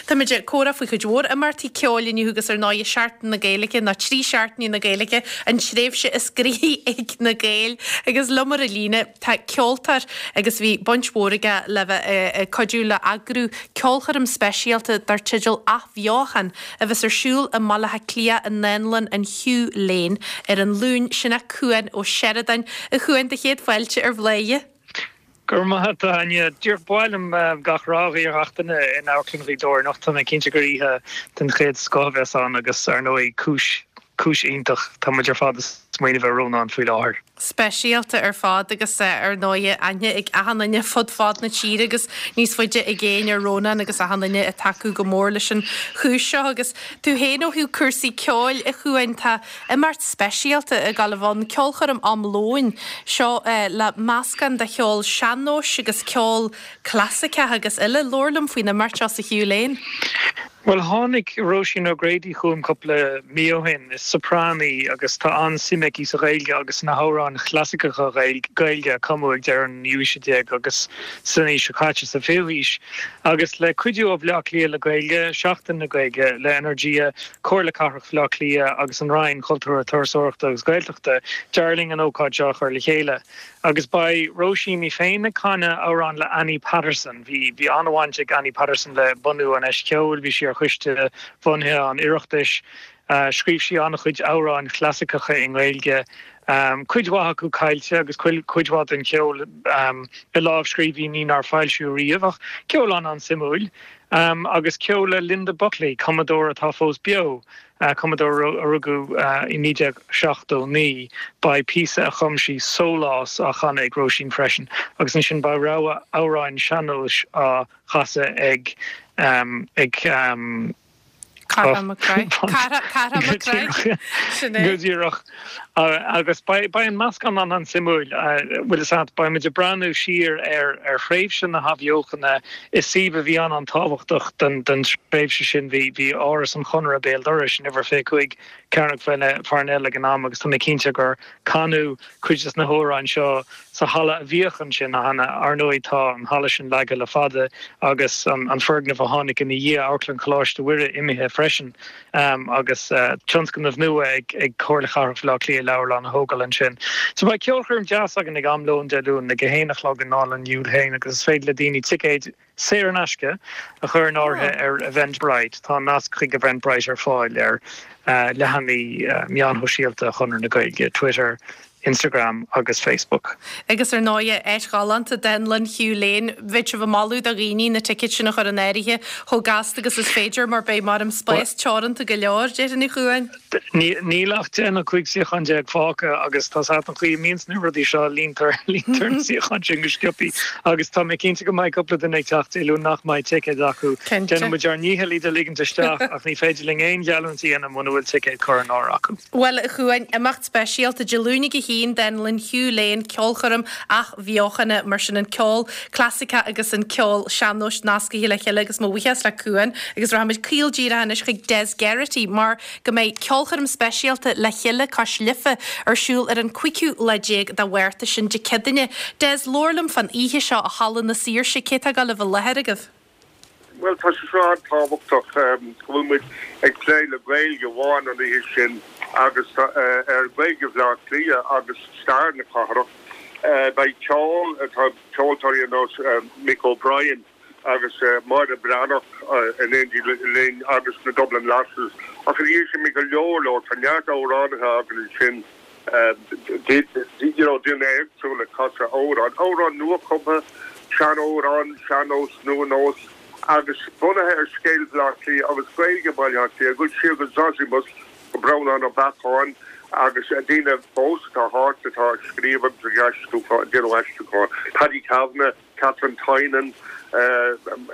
Táimid ag comhrá faoi chuid mhór imeachtaí ceoil inniu agus ar ndóigh Seachtain na Gaeilge nó 3 seachtainí na Gaeilge, an tréimhse is gnoithí ag na Gaeil. Agus liom ar an líne tá ceoltóir agus bhí baint mhór aige le bheith ag cuidiú le eagrú ceolchoirm speisialta dar teideal Athbheochan a bheas ar siúl i mBaile Átha Cliath i nDánlann an Hugh Lane ar an Luan, sin é Cuan Ó Seireadáin. A Chuain, do chéad fáilte ar Bhladhaire. Go raibh maith agat, a Áine. Díreach ba mhaith liom gach rath a ghuí ar gach duine in Amharclann Ghaoth Dobhair anocht. Tá mé cinnte gur oíche den chéad scoth a bheas ann agus, ar ndóigh, cúis, cúis iontach. Tá muid ar fad ag smaoineamh ar Rónán faoi láthair. Speisialta ar fad agus, ar ndóigh, aithne ag achan duine fud fad na tíre agus níos faide i gcéin ar Rónán agus achan duine ag tacú go mór leis an chúis seo. Agus tú féin ó thaobh cúrsaí ceoil, a Chuain, tá Imeacht speisialta ag gabháil a bheith ann, ceolchoirm am lóin, seo le meascán de cheol sean-nóis agus ceol clasaiceach agus eile. Labhair liom faoin imeacht seo sa Hugh Lane. Bhuel, tháinig Róisín O'Grady chugam cúpla mí ó shin. Is soprán í agus tá an-suim aici sa Ghaeilge agus sna hamhráin chlasaiceacha Gaeilge a cumadh ag deireadh an naoú haoise déag agus san aois seo caite, sa bhfichiú haois. Agus le cuidiú ó Bhaile Átha Cliath le Gaeilge, Seachtain na Gaeilge le Energia, Comhairle Cathrach Bhaile Átha Cliath agus an Roinn Cultúir, Turasóireachta agus Gaeltachta, d'éirigh linn an ócáid seo a chur le chéile. Agus beidh Róisín í féin ag canadh amhrán le Annie Patterson. Bhí bhí an-bhaint ag Annie Patterson le bunú an Fheis Cheoil, bhí sí ar choiste bhunaithe an Oireachtais. Scríobh sí an-chuid amhráin chlasaiceacha i nGaeilge, cuid mhaith acu caillte agus cuid mhaith den cheol i lámhscríbhinní nár foilsíodh riamh, ach ceol an-an-suimiúil. Agus ceol le Linda Buckley, cumadóir atá fós beo, cumadóir a rugadh i 1979. Beidh píosa a chum sí, Sólás, á chanadh ag Róisín freisin, agus ansin beidh rogha amhráin sean-nóis á chasadh ag ag. Cathal Mac Craith. Cathal Mac Craith. Sin é. Go díreach. Agus beidh an meascán an-an-suimiúil. Bhfuil fhios agat, beidh muid ag breathnú siar ar ar thréimhse na hathbheochana i suíomh a bhí an-an-tábhachtach don don tréimhse sin. Bhí bhí Áras an Chonartha béal dorais in uimhir 25 Cearnóg Pharnell ag an am agus tá mé cinnte gur canadh cuid des na hamhráin seo sa halla a bhíodh ansin cheana. Ar ndóigh, tá an halla sin leagtha le fada agus an foirgneamh a tháinig ina dhiaidh, Amharclann Choláiste Mhuire, imithe freisin agus tionscnamh nua ag Comhairle Chathrach Bhaile Átha Cliath leabharlann a thógáil ansin. So beidh ceolchoirm deas againn ag am lóin Dé Luain ag a haon a chlog i nDánlann Hugh Lane agus is féidir le daoine ticéid saor in aisce a chur in áirithe ar Eventbrite. Tá an nasc chuig Eventbrite ar fáil ar leathanaigh meáin shóisialta Chonradh na Gaeilge, Twitter, Instagram agus Facebook. Agus ar ndóighe, áit ghalánta, Dánlann Hugh Lane. Bheadh sibh ag moladh do dhaoine na ticéid sin a chur in áirithe chomh gasta agus is féidir mar beidh mar an spás teoranta go leor, déarfainn, a Chuain. Níl ach 10 nó 15 suíochán fágtha agus tá 's agat an chaoi a mbíonns na rudaí seo, líontar líontar na suíocháin sin go sciobthaí agus tá mé cinnte go mbeidh cúpla duine ag teacht Dé Luain nach mbeidh ticéad acu. Cinnte. Déanann muid ár ndícheall iad a ligint isteach ach ní féidir linn aon gheallúint a dhéanamh muna bhfuil ticéad curtha in áirithe acu. Bhuel, a Chuain, imeacht speisialta Dé Luain ag a haon, Dánlann Hugh Lane, ceolchoirm athbheochana, mar sin an ceol clasaiceach agus an ceol sean-nóis nascaithe le chéile agus mo bhuíochas le Cuan agus rachaimid caol díreach anois chuig Des Geraghty mar go mbeidh ceolchoirm speisialta Le Chéile Cois Life ar siúl ar an 15ú lá de Mhárta, sin Dé Céadaoine. Des, labhair liom fán oíche seo i Halla na Saoirse, cé atá ag dul a bheith i láthair agaibh? Bhuel, tá sé seo an-tábhachtach go bhfuil muid ag plé le Gaeilge amháin an oíche sin agus ar Ghaeilge Bhaile Átha Cliath agus stair na cathrach. Beidh ceol, tá ceoltóirí ar nós Mick O'Brien agus Máire Bhreathnach in éindí linn agus na Dublin Lasses. Ach ina dhiaidh sin beidh go leor leor, tá neart amhránaithe againn ansin, you know daoine éagsúla ag casadh amhrán, amhrán nua-chumtha, sean-amhrán, sean-nós, nua-nós agus bunaithe ar scéal Bhaile Átha Cliath agus Gaeilge Bhaile Átha Cliath, ag dul siar go Zosimus, go Breandán Ó Beacháin agus daoine fós atá thart atá ag scríobh agus ag aistriúchán, déanamh aistriúchán, Paddy Kavanagh, Katherine Tynan,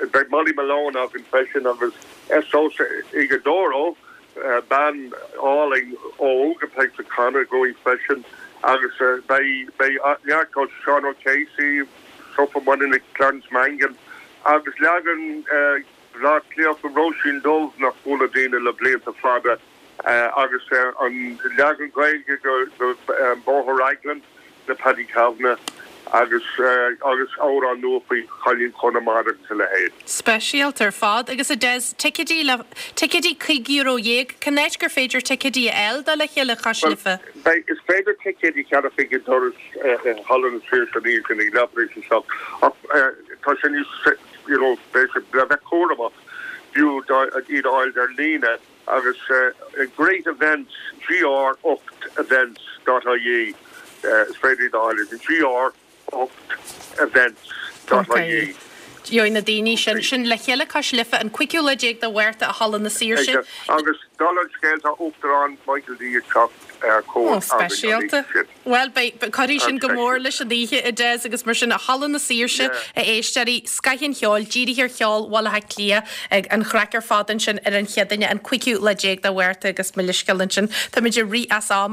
beidh Molly Malone againn freisin agus Esosa Ighodaro, bean álainn óg atá ag canadh againn freisin agus beidh neart ceoil, Seán O'Casey, Sofa Moynihan, Clarence Mangan agus leagan Bhaile Átha Cliath de Róisín Dubh nach gcuala daoine le blianta fada. agus an leagan Gaeilge de Bóthar Raglan le Paddy Kavanagh. Agus agus amhrán nua faoi Chailín Chonamara agus a leithéid. Speisialta ar fad. Agus a Des, ticéidí le, ticéidí €15 euro, cén áit gur féidir ticéidí a fháil do Le Chéile Cois Bhuel, Life? beidh, is féidir ticéidí a cheannach ag an doras i Halla na Saoirse an oíche sin ag leathuair tar éis a 7 ach tá sé níos, you know, beidh sé le bheith cúramach, b'fhiú iad a fháil ar líne agus Great Events, GR8 Events dot ie, is féidir iad a fháil ar GR8 Events dot ie. Gheobhaidh na daoine sin, sin Le Chéile Cois Life an cúigiú lá déag de Mhárta i Halla na Saoirse. Agus dála an scéil tá Uachtarán Michael D ag teacht ar cuairt againn an oíche sin. Bhuel, beidh, cuirfidh sin go mór leis an oíche, a Des, agus mar sin, i Halla na Saoirse, a éisteoirí, scoth an cheoil, dírithe ar cheol Bhaile Átha Cliath, ag an chraic ar fad ansin ar an Chéadaoine, an cúigiú lá déag de Mhárta agus mo leithscéal ansin, táimid ag rith as am.